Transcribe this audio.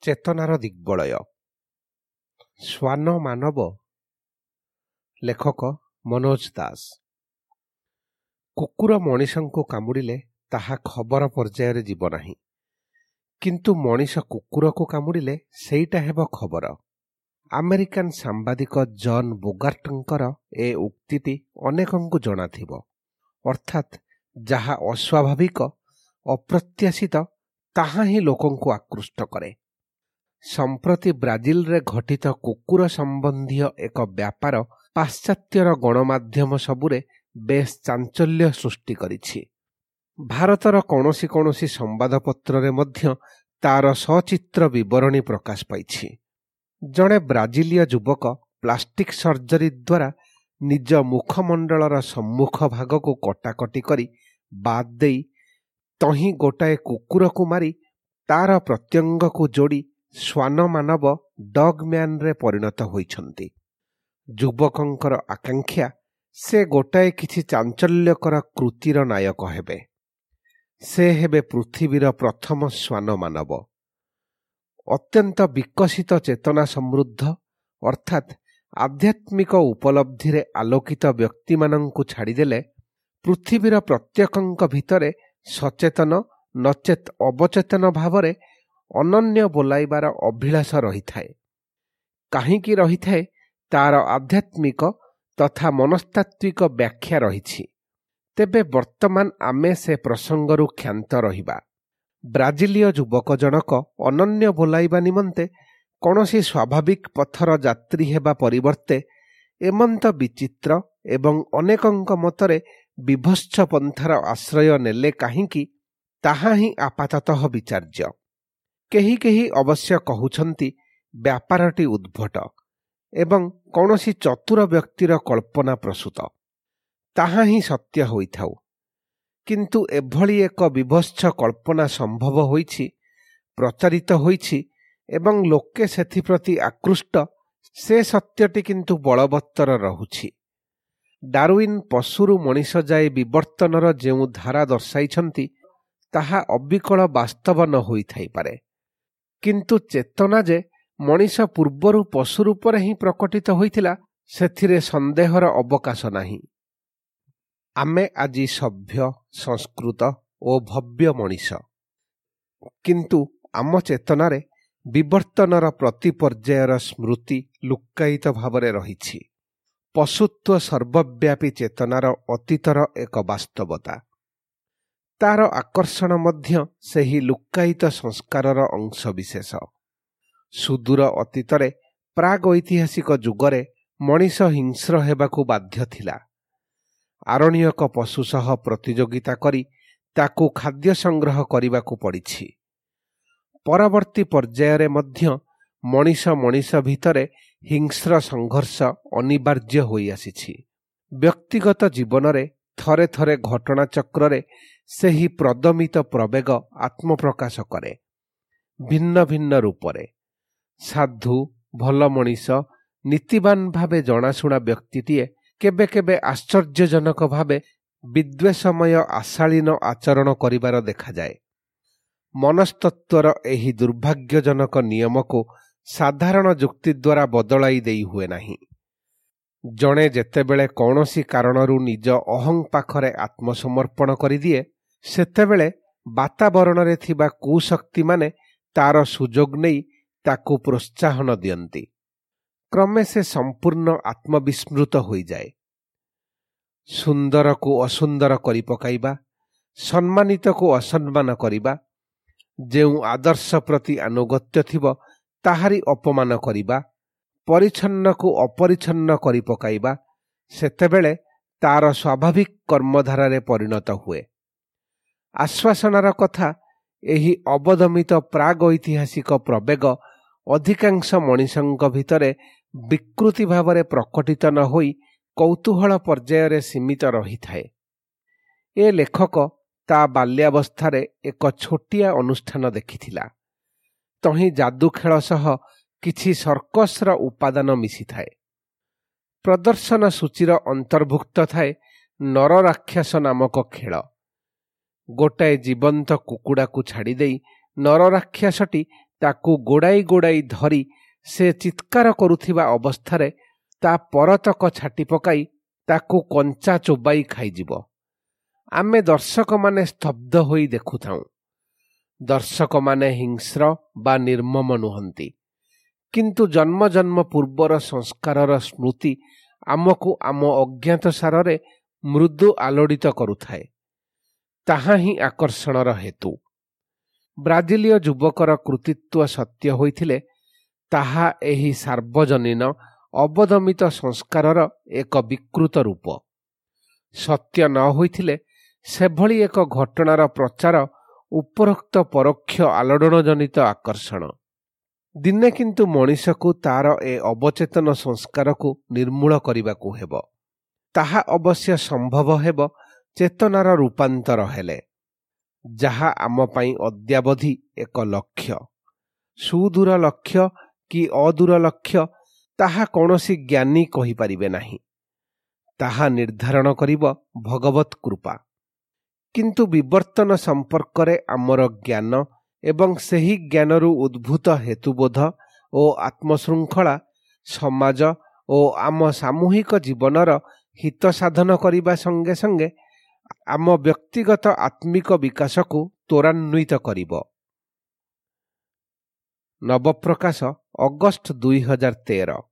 ଚେତନାର ଦିଗ୍ବଳୟ। ଶ୍ୱାନ ମାନବ। ଲେଖକ ମନୋଜ ଦାସ। କୁକୁର ମଣିଷଙ୍କୁ କାମୁଡ଼ିଲେ ତାହା ଖବର ପର୍ଯ୍ୟାୟରେ ଯିବ ନାହିଁ, କିନ୍ତୁ ମଣିଷ କୁକୁରକୁ କାମୁଡ଼ିଲେ ସେଇଟା ହେବ ଖବର। ଆମେରିକାନ ସାମ୍ବାଦିକ ଜନ୍ ବୋଗାର୍ଟଙ୍କର ଏ ଉକ୍ତିଟି ଅନେକଙ୍କୁ ଜଣାଥିବ। ଅର୍ଥାତ୍ ଯାହା ଅସ୍ୱାଭାବିକ, ଅପ୍ରତ୍ୟାଶିତ, ତାହା ହିଁ ଲୋକଙ୍କୁ ଆକୃଷ୍ଟ କରେ। ସମ୍ପ୍ରତି ବ୍ରାଜିଲରେ ଘଟିତ କୁକୁର ସମ୍ବନ୍ଧୀୟ ଏକ ବ୍ୟାପାର ପାଶ୍ଚାତ୍ୟର ଗଣମାଧ୍ୟମ ସବୁରେ ବେଶ୍ ଚାଞ୍ଚଲ୍ୟ ସୃଷ୍ଟି କରିଛି। ଭାରତର କୌଣସି କୌଣସି ସମ୍ବାଦପତ୍ରରେ ମଧ୍ୟ ତାର ସଚିତ୍ର ବିବରଣୀ ପ୍ରକାଶ ପାଇଛି। ଜଣେ ବ୍ରାଜିଲୀୟ ଯୁବକ ପ୍ଲାଷ୍ଟିକ୍ ସର୍ଜରୀ ଦ୍ୱାରା ନିଜ ମୁଖମଣ୍ଡଳର ସମ୍ମୁଖ ଭାଗକୁ କଟାକଟି କରି ବାଦ୍ ଦେଇ ତହିଁ ଗୋଟାଏ କୁକୁରକୁ ମାରି ତାର ପ୍ରତ୍ୟଙ୍ଗକୁ ଯୋଡ଼ି ଶ୍ୱାନ ମାନବ, ଡଗ୍ ମ୍ୟାନରେ ପରିଣତ ହୋଇଛନ୍ତି। ଯୁବକଙ୍କର ଆକାଂକ୍ଷା, ସେ ଗୋଟାଏ କିଛି ଚାଞ୍ଚଲ୍ୟକର କୃତିର ନାୟକ ହେବେ। ସେ ହେବେ ପୃଥିବୀର ପ୍ରଥମ ଶ୍ୱାନ ମାନବ। ଅତ୍ୟନ୍ତ ବିକଶିତ ଚେତନା ସମୃଦ୍ଧ, ଅର୍ଥାତ୍ ଆଧ୍ୟାତ୍ମିକ ଉପଲବ୍ଧିରେ ଆଲୋକିତ ବ୍ୟକ୍ତିମାନଙ୍କୁ ଛାଡ଼ିଦେଲେ ପୃଥିବୀର ପ୍ରତ୍ୟେକଙ୍କ ଭିତରେ ସଚେତନ ନଚେତ୍ ଅବଚେତନ ଭାବରେ ଅନନ୍ୟ ବୋଲାଇବାର ଅଭିଳାଷ ରହିଥାଏ। କାହିଁକି ରହିଥାଏ, ତାର ଆଧ୍ୟାତ୍ମିକ ତଥା ମନସ୍ତାତ୍ତ୍ୱିକ ବ୍ୟାଖ୍ୟା ରହିଛି। ତେବେ ବର୍ତ୍ତମାନ ଆମେ ସେ ପ୍ରସଙ୍ଗରୁ କ୍ଷାନ୍ତ ରହିବା। ବ୍ରାଜିଲୀୟ ଯୁବକ ଜଣକ ଅନନ୍ୟ ବୋଲାଇବା ନିମନ୍ତେ କୌଣସି ସ୍ୱାଭାବିକ ପଥର ଯାତ୍ରୀ ହେବା ପରିବର୍ତ୍ତେ ଏମନ୍ତ ବିଚିତ୍ର ଏବଂ ଅନେକଙ୍କ ମତରେ ବିଭତ୍ସ ପନ୍ଥାର ଆଶ୍ରୟ ନେଲେ କାହିଁକି, ତାହା ହିଁ ଆପାତତଃ ବିଚାର୍ଯ୍ୟ। କେହି କେହି ଅବଶ୍ୟ କହୁଛନ୍ତି, ବ୍ୟାପାରଟି ଉଦ୍ଭଟ ଏବଂ କୌଣସି ଚତୁର ବ୍ୟକ୍ତିର କଳ୍ପନା ପ୍ରସୂତ। ତାହା ହିଁ ସତ୍ୟ ହୋଇଥାଉ, କିନ୍ତୁ ଏଭଳି ଏକ ବିଭତ୍ସ କଳ୍ପନା ସମ୍ଭବ ହୋଇଛି, ପ୍ରଚାରିତ ହୋଇଛି ଏବଂ ଲୋକେ ସେଥିପ୍ରତି ଆକୃଷ୍ଟ, ସେ ସତ୍ୟଟି କିନ୍ତୁ ବଳବତ୍ତର ରହୁଛି। ଡାରୁଇନ୍ ପଶୁରୁ ମଣିଷ ଯାଏ ବିବର୍ତ୍ତନର ଯେଉଁ ଧାରା ଦର୍ଶାଇଛନ୍ତି, ତାହା ଅବିକଳ ବାସ୍ତବ ନ ହୋଇଥାଇପାରେ, କିନ୍ତୁ ଚେତନା ଯେ ମଣିଷ ପୂର୍ବରୁ ପଶୁ ରୂପରେ ହିଁ ପ୍ରକଟିତ ହୋଇଥିଲା, ସେଥିରେ ସନ୍ଦେହର ଅବକାଶ ନାହିଁ। ଆମେ ଆଜି ସଭ୍ୟ, ସଂସ୍କୃତ ଓ ଭବ୍ୟ ମଣିଷ, କିନ୍ତୁ ଆମ ଚେତନାରେ ବିବର୍ତ୍ତନର ପ୍ରତି ପର୍ଯ୍ୟାୟର ସ୍ମୃତି ଲୁକ୍କାୟିତ ଭାବରେ ରହିଛି। ପଶୁତ୍ୱ ସର୍ବବ୍ୟାପୀ ଚେତନାର ଅତୀତର ଏକ ବାସ୍ତବତା। ତାର ଆକର୍ଷଣ ମଧ୍ୟ ସେହି ଲୁକ୍କାୟିତ ସଂସ୍କାରର ଅଂଶବିଶେଷ। ସୁଦୂର ଅତୀତରେ ପ୍ରାଗ୍ ଐତିହାସିକ ଯୁଗରେ ମଣିଷ ହିଂସ୍ର ହେବାକୁ ବାଧ୍ୟ ଥିଲା। ଆରଣ୍ୟକ ପଶୁ ସହ ପ୍ରତିଯୋଗିତା କରି ତାକୁ ଖାଦ୍ୟ ସଂଗ୍ରହ କରିବାକୁ ପଡ଼ିଛି। ପରବର୍ତ୍ତୀ ପର୍ଯ୍ୟାୟରେ ମଧ୍ୟ ମଣିଷ ମଣିଷ ଭିତରେ ହିଂସ୍ର ସଂଘର୍ଷ ଅନିବାର୍ଯ୍ୟ ହୋଇଆସିଛି। ବ୍ୟକ୍ତିଗତ ଜୀବନରେ ଥରେ ଥରେ ଘଟଣାଚକ୍ରରେ ସେହି ପ୍ରଦମିତ ପ୍ରବେଗ ଆତ୍ମପ୍ରକାଶ କରେ ଭିନ୍ନ ଭିନ୍ନ ରୂପରେ। ସାଧୁ, ଭଲ ମଣିଷ, ନୀତିବାନ ଭାବେ ଜଣାଶୁଣା ବ୍ୟକ୍ତିଟିଏ କେବେ କେବେ ଆଶ୍ଚର୍ଯ୍ୟଜନକ ଭାବେ ବିଦ୍ୱେଷମୟ ଆଶାଳୀନ ଆଚରଣ କରିବାର ଦେଖାଯାଏ। ମନସ୍ତତ୍ତ୍ୱର ଏହି ଦୁର୍ଭାଗ୍ୟଜନକ ନିୟମକୁ ସାଧାରଣ ଯୁକ୍ତି ଦ୍ୱାରା ବଦଳାଇ ଦେଇ ହୁଏ ନାହିଁ। ଜଣେ ଯେତେବେଳେ କୌଣସି କାରଣରୁ ନିଜ ଅହଂ ପାଖରେ ଆତ୍ମସମର୍ପଣ କରିଦିଏ, ସେତେବେଳେ ବାତାବରଣରେ ଥିବା କୁଶକ୍ତିମାନେ ତାର ସୁଯୋଗ ନେଇ ତାକୁ ପ୍ରୋତ୍ସାହନ ଦିଅନ୍ତି। କ୍ରମେ ସେ ସମ୍ପୂର୍ଣ୍ଣ ଆତ୍ମବିସ୍ମୃତ ହୋଇଯାଏ। ସୁନ୍ଦରକୁ ଅସୁନ୍ଦର କରି ପକାଇବା, ସମ୍ମାନିତକୁ ଅସମ୍ମାନ କରିବା, ଯେଉଁ ଆଦର୍ଶ ପ୍ରତି ଆନୁଗତ୍ୟ ଥିବ ତାହାରି ଅପମାନ କରିବା, ପରିଚ୍ଛନ୍ନକୁ ଅପରିଚ୍ଛନ୍ନ କରି ପକାଇବା ସେତେବେଳେ ତାର ସ୍ୱାଭାବିକ କର୍ମଧାରାରେ ପରିଣତ ହୁଏ। ଆଶ୍ୱାସନାର କଥା, ଏହି ଅବଦମିତ ପ୍ରାଗ୍ ଐତିହାସିକ ପ୍ରବେଗ ଅଧିକାଂଶ ମଣିଷଙ୍କ ଭିତରେ ବିକୃତି ଭାବରେ ପ୍ରକଟିତ ନ ହୋଇ କୌତୂହଳ ପର୍ଯ୍ୟାୟରେ ସୀମିତ ରହିଥାଏ। ଏ ଲେଖକ ତା ବାଲ୍ୟାବସ୍ଥାରେ ଏକ ଛୋଟିଆ ଅନୁଷ୍ଠାନ ଦେଖିଥିଲା। ତହିଁ ଯାଦୁଖେଳ ସହ କିଛି ସର୍କସର ଉପାଦାନ ମିଶିଥାଏ। ପ୍ରଦର୍ଶନ ସୂଚୀର ଅନ୍ତର୍ଭୁକ୍ତ ଥାଏ ନରରାକ୍ଷସ ନାମକ ଖେଳ। ଗୋଟାଏ ଜୀବନ୍ତ କୁକୁଡ଼ାକୁ ଛାଡ଼ିଦେଇ ନରରାକ୍ଷସଟି ତାକୁ ଗୋଡ଼ାଇ ଗୋଡ଼ାଇ ଧରି ସେ ଚିତ୍କାର କରୁଥିବା ଅବସ୍ଥାରେ ତା ପରତକ ଛାଟି ପକାଇ ତାକୁ କଞ୍ଚା ଚୋବାଇ ଖାଇଯିବ। ଆମେ ଦର୍ଶକମାନେ ସ୍ତବ୍ଧ ହୋଇ ଦେଖୁଥାଉଁ। ଦର୍ଶକମାନେ ହିଂସ୍ର ବା ନିର୍ମମ ନୁହନ୍ତି, କିନ୍ତୁ ଜନ୍ମ ଜନ୍ମ ପୂର୍ବର ସଂସ୍କାରର ସ୍ମୃତି ଆମକୁ ଆମ ଅଜ୍ଞାତ ସାରରେ ମୃଦୁ ଆଲୋଡ଼ିତ କରୁଥାଏ। ତାହା ହିଁ ଆକର୍ଷଣର ହେତୁ। ବ୍ରାଜିଲୀୟ ଯୁବକର କୃତିତ୍ୱ ସତ୍ୟ ହୋଇଥିଲେ ତାହା ଏହି ସାର୍ବଜନୀନ ଅବଦମିତ ସଂସ୍କାରର ଏକ ବିକୃତ ରୂପ। ସତ୍ୟ ନ ହୋଇଥିଲେ ସେଭଳି ଏକ ଘଟଣାର ପ୍ରଚାର ଉପରୋକ୍ତ ପରୋକ୍ଷ ଆଲୋଡ଼ନଜନିତ ଆକର୍ଷଣ। ଦିନେ କିନ୍ତୁ ମଣିଷକୁ ତାର ଏ ଅବଚେତନ ସଂସ୍କାରକୁ ନିର୍ମୂଳ କରିବାକୁ ହେବ। ତାହା ଅବଶ୍ୟ ସମ୍ଭବ ହେବ ଚେତନାର ରୂପାନ୍ତର ହେଲେ, ଯାହା ଆମ ପାଇଁ ଅଦ୍ୟାବଧି ଏକ ଲକ୍ଷ୍ୟ। ସୁଦୂର ଲକ୍ଷ୍ୟ କି ଅଦୂର ଲକ୍ଷ୍ୟ, ତାହା କୌଣସି ଜ୍ଞାନୀ କହିପାରିବେ ନାହିଁ। ତାହା ନିର୍ଦ୍ଧାରଣ କରିବ ଭଗବତ କୃପା। କିନ୍ତୁ ବିବର୍ତ୍ତନ ସମ୍ପର୍କରେ ଆମର ଜ୍ଞାନ ଏବଂ ସେହି ଜ୍ଞାନରୁ ଉଦ୍ଭୂତ ହେତୁବୋଧ ଓ ଆତ୍ମଶୃଙ୍ଖଳା ସମାଜ ଓ ଆମ ସାମୂହିକ ଜୀବନର ହିତ ସାଧନ କରିବା ସଙ୍ଗେ ସଙ୍ଗେ ଆମ ବ୍ୟକ୍ତିଗତ ଆତ୍ମିକ ବିକାଶକୁ ତ୍ୱରାନ୍ୱିତ କରିବ। ନବପ୍ରକାଶ, ଅଗଷ୍ଟ 2013।